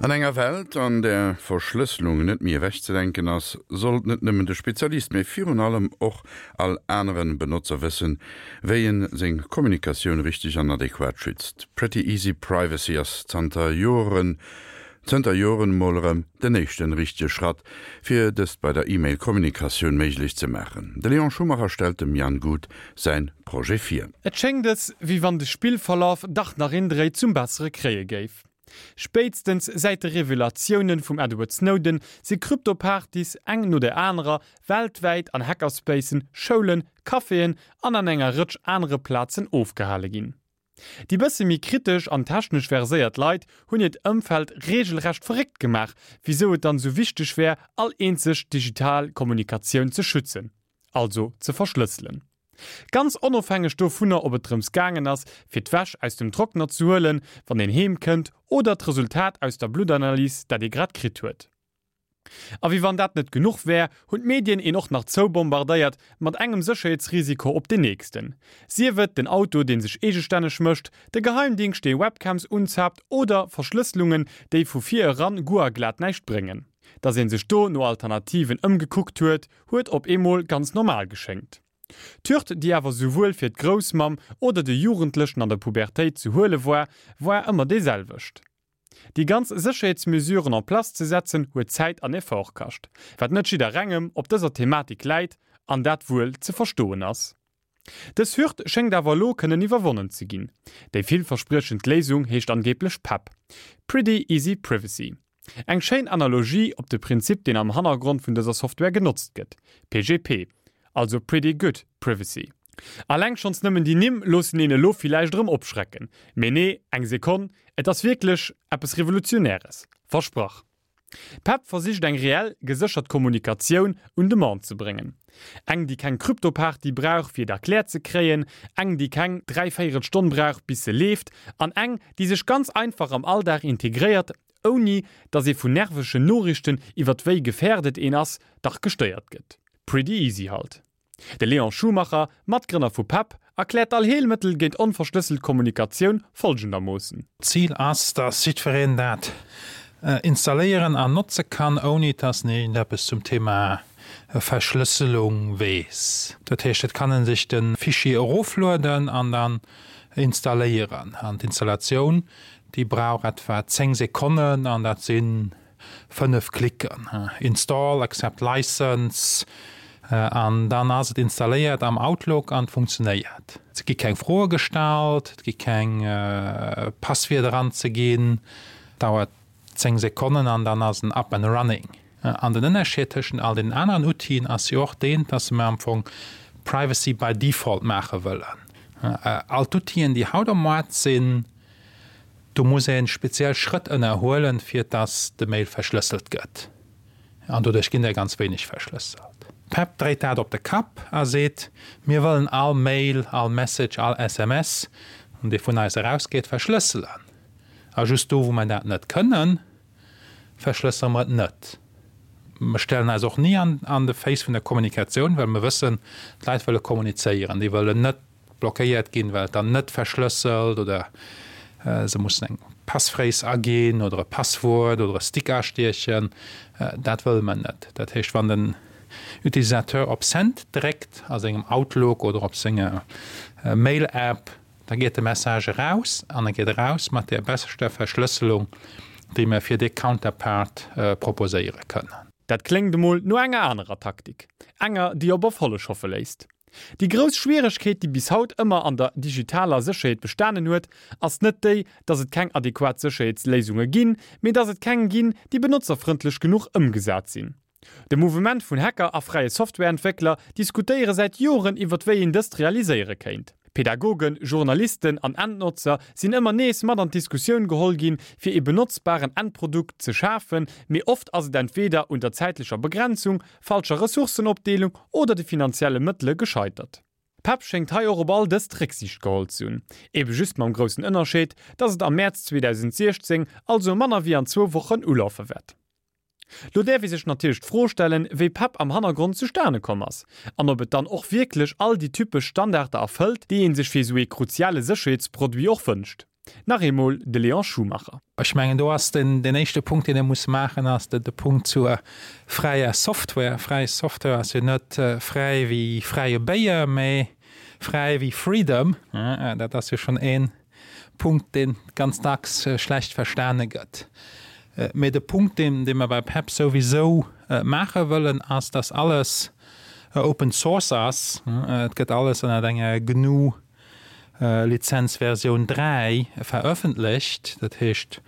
An enger Welt, an där Verschlësselung net méi ewechzedenken ass, sollt net nëmmen de Spezialist, mee virun allem och all aneren Benotzer wëssen, wéi en seng Kommunikatioun richteg an adequat schützt. Pretty Easy Privacy ass zanter Joren zënter Joren mol erëm den éischten richtege Schratt, fir dëst bei der E-Mail-Kommunikatioun méiglech ze maachen. De Léon Schumacher stellt dem Jan Guth säin Projet vir. Et schéngt es, wéi wann de Spillverlaf dach nach een Dréi zum Bessere kréie géif. Spéitstens säit de Revelatiounen vum Edward Snowden si Krypto-Partys eng no der anerer weltwäit an Hackerspacen, Schoulen, Caféen an an enger Rëtsch anere Plazen ofgehale ginn. Déi bësse méi kritesch an technesch verséiert Leit hunn hiert Ëmfeld reegelrecht verréckt gemaach, wisou et dann esou wichteg wär, all eenzeg digital Kommunikatioun ze schützen, also ze verschlësselen. Ganz onofhängeg dovunner, ob et drëms gaangen ass, fir d'Wäsch aus dem Trockner ze huelen, wann een heem kënnt, oder d'Resultat aus der Bluttanalys, dat ee grad kritt huet. A wéi wann dat net genuch wär, hunn d'Medien een och nach zoubombardéiert mat engem Sécherheetsrisiko op deen nächsten. Sief et den Auto deen sech eegestänneg mécht, de Geheimdingscht dee Webcams unzaapt oder Verschlësselungen déi vu vir eran guer a glat näischt bréngen. Dass een sech do no Alternativen ëmgekuckt huet, huet op eemol ganz normal geschéngt. D'Hürd déi awer souwuel fir d'Groussmamm oder de Jugendlechen an der Pubertéit ze huele war, war ëmmer déi selwecht. Déi ganz Sécherheetsmesuren en place ze setzen huet Zäit an Effort kascht, wat net jidderengem op dëser Thematik läit an dat wuel ze verstoen ass. Dës Hürd schéngt awer elo kënnen iwwerwonnen ze ginn. Déi villverspriechend Léisung heescht angeeblech PEP, Pretty Easy Privacy. Eng schéin Analogie op de Prinzip deen am Hannergrond vun dëser Software genotzt gëtt, PGP, also Pretty Good Privacy. Alleng schonns nëmmen déi Nimm loossen een elo villäicht erëm opschrecken. Mee nee, eng Sekonn, et ass wierklech eppes Revolutionäres. Versprach. PEP versicht eng reell, geséchert Kommunikatioun un de Mann ze bréngen. Eng déi keng Kryptoparty brauch fir et erkläert ze kréien, eng déi keng dräivéierel Stonn brauch bis se leeft an eng déi sech ganz einfach am Alldag integréiert, ouni dass ee vun nervegen Noriichten iwwert wéi gefährdet een ass, dach gestéiert gëtt. Pretty easy halt. De Léon Schumacher, Matgrënner vu pep, erkläert d'Allheelmëttel géint onverschlësselt Kommunikatioun folgendermoossen. D'Zil ass, dass jiddwereen dat installéieren an notze kann, ouni dass en iergendeppes zum Thema Verschlësselung weess. Dat heescht, et kann e sech de Fichier eroflueden an dann installéieren. An d'Installatioun, déi brauch etwa 10 Sekonnen an dat sinn 5 Klicken, Install, Accept License, an dann ass et installéiert am Outlook an funktionéiert. Et gi keng Froe gestallt, et gi keng Passwierder anzeginn, dauert 10 Sekonnen an dann ass en up and running. An den Ënnerscheed tëschent all deenen aneren Outile ass jo och deen, dass mer am Fong Privacy by default maache wëllen. All d'Outilen, déi haut am Moart sinn, Do muss een speziell Schrëtt ënnerhuelen, fir dass de Mail verschlësselt gëtt. An doduerch ginn der ganz wéineg verschlësselt. D'Pep dréit dat op de Kapp a seet, Mir wëllen all Mail, all Message, all SMS, dee vun eis erausgeet, verschlësselen. A just do, wou mer dat net kënnen, verschlëssere mer et net. Mer stellen eis och ni an de Face vun der Kommunikatioun, well mer wëssen, d'Leit wëlle kommunizéieren. Déi wëllen net blockéiert ginn, well et dann net verschlësselt oder se mussen eng Passphrase aginn oder e Passwuert oder e Stick astiechen. Dat wëlle mer net. Dat heescht, wann den Utilisateur op Send dréckt a sengem Outlook oder op senger Mail-App, da geet de Message eraus an e geet eraus mat där beschter Verschlësselung, déi mer fir dee Counterpart proposéiere kënnen. Dat kléngt emol no enger anerer Taktik, enger, déi op Erfolleg hoffe léisst. Déi grouss Schwieregkeet, déi bis haut ëmmer an der digitaler Sécherheet bestanen huet, ass net déi, dass et keng adequat Sécherheetsléisunge ginn, mee dass et keng ginn, déi benotzerfrëndlech genuch ëmgesat sinn. De Mouvement vun Hacker a fräie Softwareentwéckler diskutéiere säit Joren iwwert wéi een dëst realiséiere kéint. Pädagogen, Journalisten an Endnotzer sinn ëmmer nees mat an d'Diskussioun geholl ginn, fir ee benotzbaren Endprodukt ze schafen, mee oft ass et entweeder un der zäitlecher Begrenzung, falscher Ressourcenopdeelung oder de finanzielle Mëttele gescheitert. PEP schéngt hei och op all dëst Récksiicht geholl ze hunn, ebe just mam groussen Ënnerscheed, dass et am Mäerz 2016, also manner wéi an zwou Wochen, ulafe wäert. Lo däerf ee sech natierlech d'Fro stellen, wéi PEP am Hannergrond zustane komm ass an ob et dann och wierklech all déi typesch Standarder erfëllt, déi ee sech fir esou ee kruziale Sécherheetsproduit och wënscht. Nach eemol de Léon Schumacher. Ech mengen, do ass den éischte Punkt, deen ee muss maachen, ass de Punkt zur fräier Software. Fräi Software ass jo net fräi wéi fräie Béier, mä fräi wéi Freedom. Dat ass jo schonn ee Punkt, dee ganz dacks schlecht verstane gëtt. Mä de Punkt, dee mer bei PEP souwisou maache wëllen, ass, dass alles Open Source ass. Et gëtt alles ënnert enger GNU Lizenz Versioun 3 verëffentlecht, dat heescht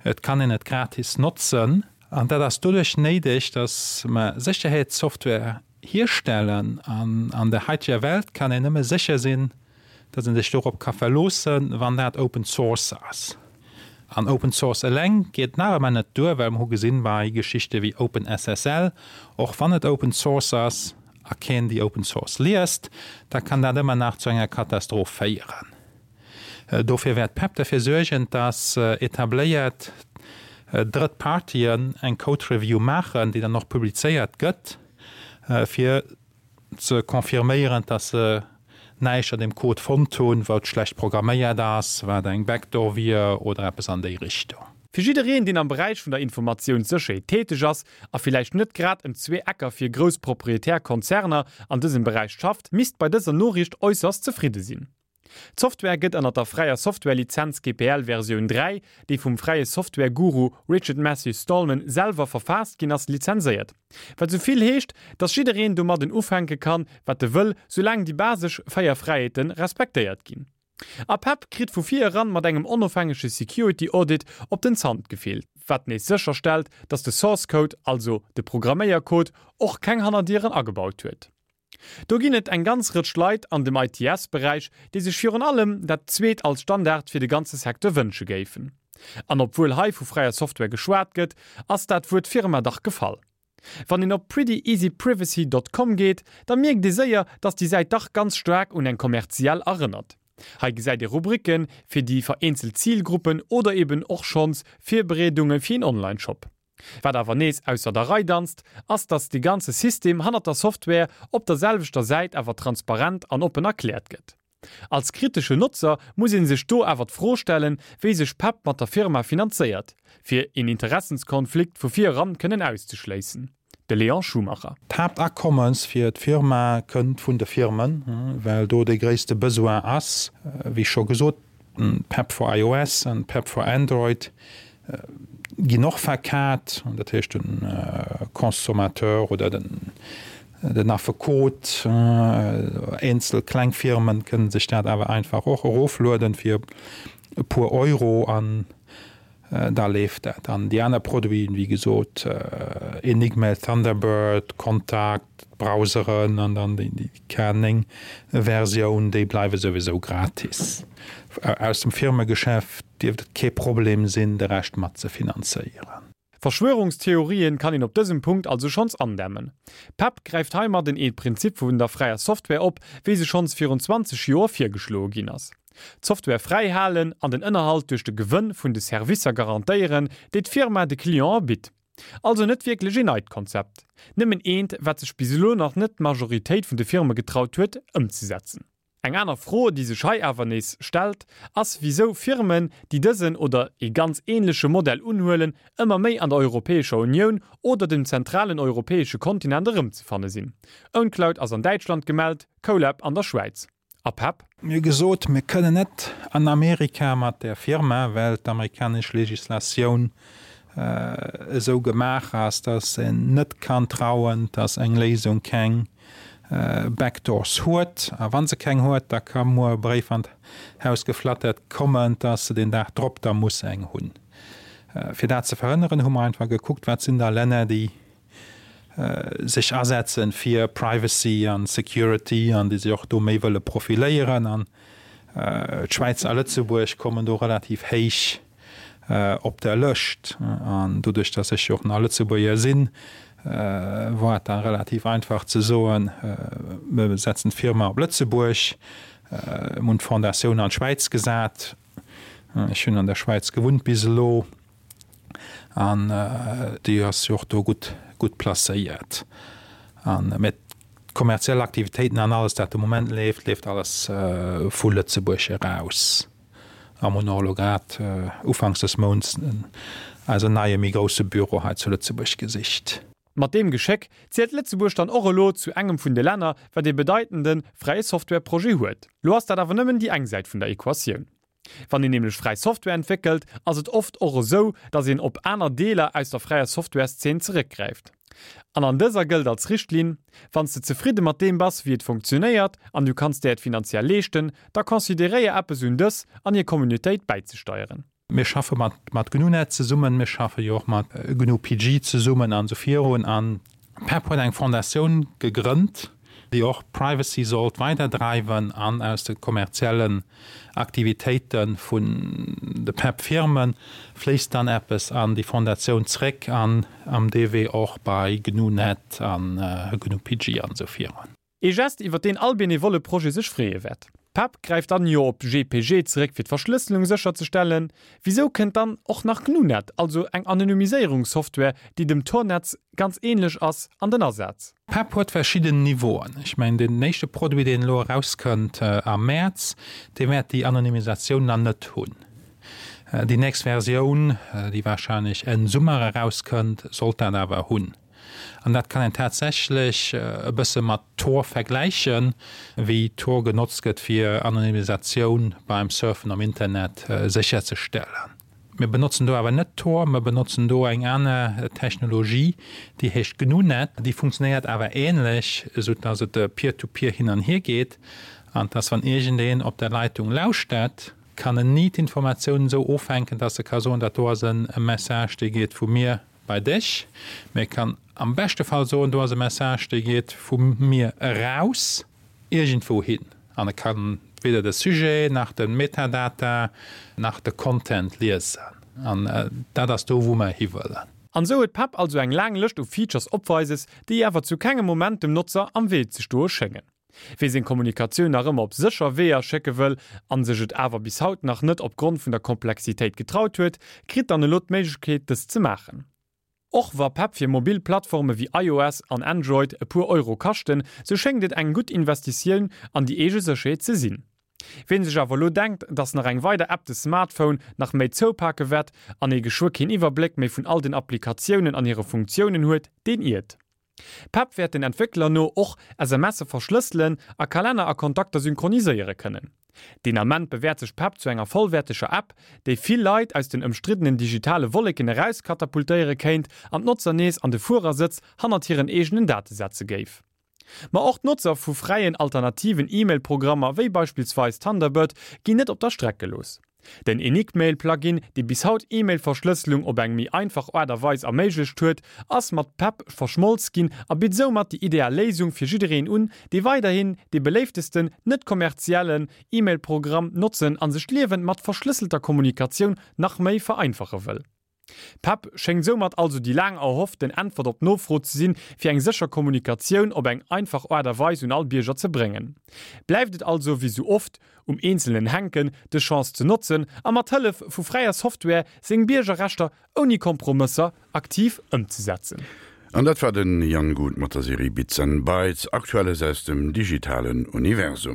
et kann een et gratis notzen. An dat ass doduerch néideg, datt mer Sécherheetssoftware hierstellen an an der haiteger Welt kann een nëmme sécher sinn, datt een sech dorop ka verloossen, wann dat Open Source ass. An Open Source eleng geet nach ëmmer net duer, well mer hu gesinn bei Geschichte wéi OpenSSL, och wann et Open Source ass, a keen déi Open Source liest, da kann dat ëmmer nach zu enger Katastroph féieren. Dofir wäert PEP derfir suergen, dass etabléiert drëtt Partien eng Code Review maachen, déi dann och publizéiert gëtt, fir ze confirméieren, dass se näischt an deem Code fonnt hunn, wat schlecht programméiert ass, wat eng Backdoor wier oder eppes an déi Richtung. Fir jiddereen, deen am Beräich vun der Informatiounssécherheet täteg ass a villäicht net grad ëm zwee Ecker fir grouss proprietär Konzerner an dësem Beräich schafft, misst bei dëser Noriicht äusserst zefridde sinn. D'Software gëtt ënnert der fräier Software-Lizenz GPL Versioun 3, déi vum fräie Software-Guru Richard Matthew Stallman selwer verfaasst ginn ass, lizenséiert. Wat esou vill heescht, dass jiddereen domadden ufänke kann, wat e wëll, soulaang déi basesch 4 Fräiheete respektéiert ginn. A PEP kritt vu vir eran mat engem onofhängege Security Audit op den Zant gefillt, wat nees sécherstellt, dass de Source Code, also de Programméiercode, och keng Hannerdieren agebaut huet. Do ginn et eng ganz Rëtsch Leit an dem ITS-Beräich, déi sech virun allem dat zweet als Standard fir de ganze Secteur wënsche géifen. An obwuel hei vu fräier Software geschwat gëtt, ass dat Wuert Firma dach gefall. Wann een op prettyeasyprivacy dot com geet, da mierkt ee séier, dass déi Säit dach ganz staark un eng kommerziell erënnert. Hei gesäit ee Rubriken fir déi vereenzelt Zilgruppen oder eben och schonns Virbereedunge fir een Online-Shop. Wat awer nees ausser der Rei danzt, ass dass dee ganze System hannert der Software op der selwechter Säit awer transparent an oppen erkläert gëtt. Als kritesche Notzer muss ee sech do awer d'Fro stellen, wéi sech PEP mat der Firma finanzéiert, fir een Interessenskonflikt vu vir eran kënnen auszeschléissen. De Léon Schumacher. D'Haaptakommes fir d'Firma kënnt vun de Firmen, well do dee gréisste Besoin ass. Wéi scho gesot, PEP for iOS an PEP for Android ginn och verkat, dat heescht de Consommateur oder den Affekot, eenzel kleng Firmen kënnen sech dat awer einfach och eroflueden fir e puer Euro an da leeft dat. An déi aner Produiten, wéi gesot Enigmail, Thunderbird, Contact, d'Browseren an dann déi K9 Versioun, déi bleiwe souwisou gratis. Aus dem Firmegeschäft dierft et kee Problem sinn, de Rescht mat ze finanzéieren. Verschwörungstheorien kann een op dësem Punkt also schonns andämmen. PEP gräift heimadden ee Prinzip vun der fräier Software op, wéi se schonns virun 20 Joer virgeschloe ginn ass. D'Software fräi halen an den Ënnerhalt duerch de Gewënn vun de Servicer garantéieren, déi d'Firma de Clientë bitt. Also net wierklech een neit Konzept, nëmmen eent, wat sech bis elo nach net d'Majoritéit vun de Firme getraut huet, ëmzesetzen. Eng aner Fro, déi sech hei awer nees stellt, ass wisou Firmen, déi dësen oder ee ganz ähnleche Modell unhuelen, ëmmer méi an der Europäescher Unioun oder dem zentralen europäesche Kontinent erëmzefanne sinn. Owncloud ass an Däitschland gemellt, Colab an der Schwäiz. A PEP? Mir hu gesot, mir kënnen net an Amerika mat där Firma, well d'amerikanesch Legislatioun esou gemaach ass, dass een net kann trauen, dass eng Léisung keng Backdoors huet. A wa se keng huet, da ka muer e Bréif an d'Haus geflattert kommen, dass se deen Dag drop da muss eng hunn. Fir dat ze verhënneren, hu mer einfach gekuckt, wat sinn da Länner, déi sech asetzen fir Privacy an Security an déi sech och do méi wëlle profiléieren. An d'Schwäiz a Lëtzebuerg kommen do relativ héich op der Lëscht. An doduerch, datt ech jo och nach Lëtzebuerger sinn, war et da relativ einfach ze soen, mir setzen d'Firma op Lëtzebuerg. Mir hunn d'Fondatioun an d'Schwäiz gesat. Ech hunn an der Schwäiz gewunnt bis elo. An déi ass jo och do gutt, gutt placéiert. An, mä d'kommerziell Aktivitéiten an alles, dat de Moment leeft, leeft alles vu Lëtzebuerg eraus. A mer hunn och elo grad ufanks des Mounts eisen neie méi grousse Büro hei zu Lëtzebuerg gesicht. Mat deem Geschéck zielt Lëtzebuerg dann och elo zu engem vun de Länner, wat ee bedeitende fräie Software-Projet huet. Lo ass dat awer nëmmen déi eng Säit vun der Equatioun. Wann een nämlech fräi Software entwéckelt, ass et oft och esou, datt een op aner Deeler aus der fräier Softwareszeen zeréckgräift. An an dëser gëllt als Richtlinn, Wann s de zefridde mat deem bass, wéi et funktionéiert, an du kanns der et finanziell leeschten, da consideréier eppes un dës an hir Communautéit bäizesteieren. Mir schaffe mat mat GNUnet zesummen, mir schaffe jo och mat GNU-PG zesummen an esou virun. An PEP huet eng Fondatioun gegrënnt, déi och Privacy sollt weiderdreiwen an aus de kommerziellen Aktivitéite vun de PEP-Firme fléisst dann eppes an déi Fondatioun zréck an am dee Wee och bei GNUnet an GNU-PG an esou virun. Ee Gest, iwwer deen all benevolle Projet sech freeë wäert. PEP gräift dann jo op GPG zeréck fir d'Verschlësselung sécherzestellen. Wisou kënnt dann och nach GNUnet, also eng Anonymiséierungssoftware, déi dem Tor-Netz ganz ähnlech ass, an den Asaz? PEP huet verschidden Niveauen. Ech mengen, deen éischte Produit, deen elo erauskënnt am Mäerz, dee wäert déi Anonymisatioun nach net hunn. Déi nächst Versioun, déi warscheinlech Enn Summer erauskënnt, sollt dat awer hunn. An dat kann een tatsächlech e bësse mat Tor vergläichen, wéi Tor genotzt gëtt, fir Anonymisatioun beim Surfen am Internet sécherzestellen. Mir benotzen do awer net Tor, mer benotzen do eng aner Technologie, déi heescht GNUnet. Déi funktionéiert awer änlech, esou dass et peer-to-peer hin an hier geet an dass, wann iergendeen op der Leitung lauschtert, kann en ni d'Informatiounen esou ofhänken, dass e ka soen, dat do ass e Message, dee geet vu mir bei dech, mee e kann am beschte Fall soen, do ass e Message, dee geet vu mir eraus iergendwou hin. An e kann weder de Sujet nach de Metadata nach de Content liesen. An dat ass do, wou mer hiwëllen. An esou huet PEP also eng laang Lëscht u Features opweises, déi awer zu kengem Moment dem Notzer am Wee ze stoe schéngen. Wee seng Kommunikatioun nach ëmmer op sécher Weeër schécke wëll an sech et awer bis haut nach net opgrond vun der Komplexitéit getraut huet, kritt dann elo d'Méiglechkeet dëst ze maachen. Och wa PEP fir mobil Plattforme wéi iOS an Android e puer Euro kaschten, sou schéngt et eng gutt Investitioun an déi eege Sécherheet ze sinn. Ween sech awer elo denkt, dass nach eng weider App de Smartphone nach méi zoupake wäert an ee geschwë keen Iwwerbléck méi vun all den Applikatiounen an hire Funktiounen huet, deen iert. PEP wäert den Entwéckler no och SMSe verschlësselen a Kalenner a Kontakter synchroniséiere kënnen. Deen Ament bewäert sech PEP zu enger vollwäerteger App, déi vill Leit aus den ëmstriddenen digitale Wolleken erauskatapultéiere kéint an d'Notzer nees an de Fuerersëtz hannert hiren eegenen Date setze géif. Ma och d'Notzer vu fräien alternativen E-Mail-Programmer wéi beispillsweis Thunderbird ginn net op der Streck gelooss. Den Enigmail-Plugin, dee bis haut E-Mail-Verschlësselung op eng méi einfach Aart a Weis erméiglecht huet, ass mat PEP verschmolz ginn a bitt soumat déi ideal Léisung fir jiddereen un, dee weiderhin dee beléiftesten, net-kommerziellen E-Mail-Programm notzen a sech d'Liewen mat verschlësselter Kommunikatioun nach méi vereinfache wëll. PEP schéngt soumat also déi laang erhofften Äntwert op d'Nofro ze sinn, fir eng sécher Kommunikatioun op eng einfach Aart a Weis un all Bierger ze bréngen. Bleift et also, wéi sou oft, um Eenzelnen hänken, dës Chance ze notzen a mat Hëllef vu fräier Software seng Biergerrechter ouni Kompromësser aktiv ëmzesetzen. An dat war den Jan Guth mat der Serie Bits and Bytes, Aktuelles aus dem digitalen Universum.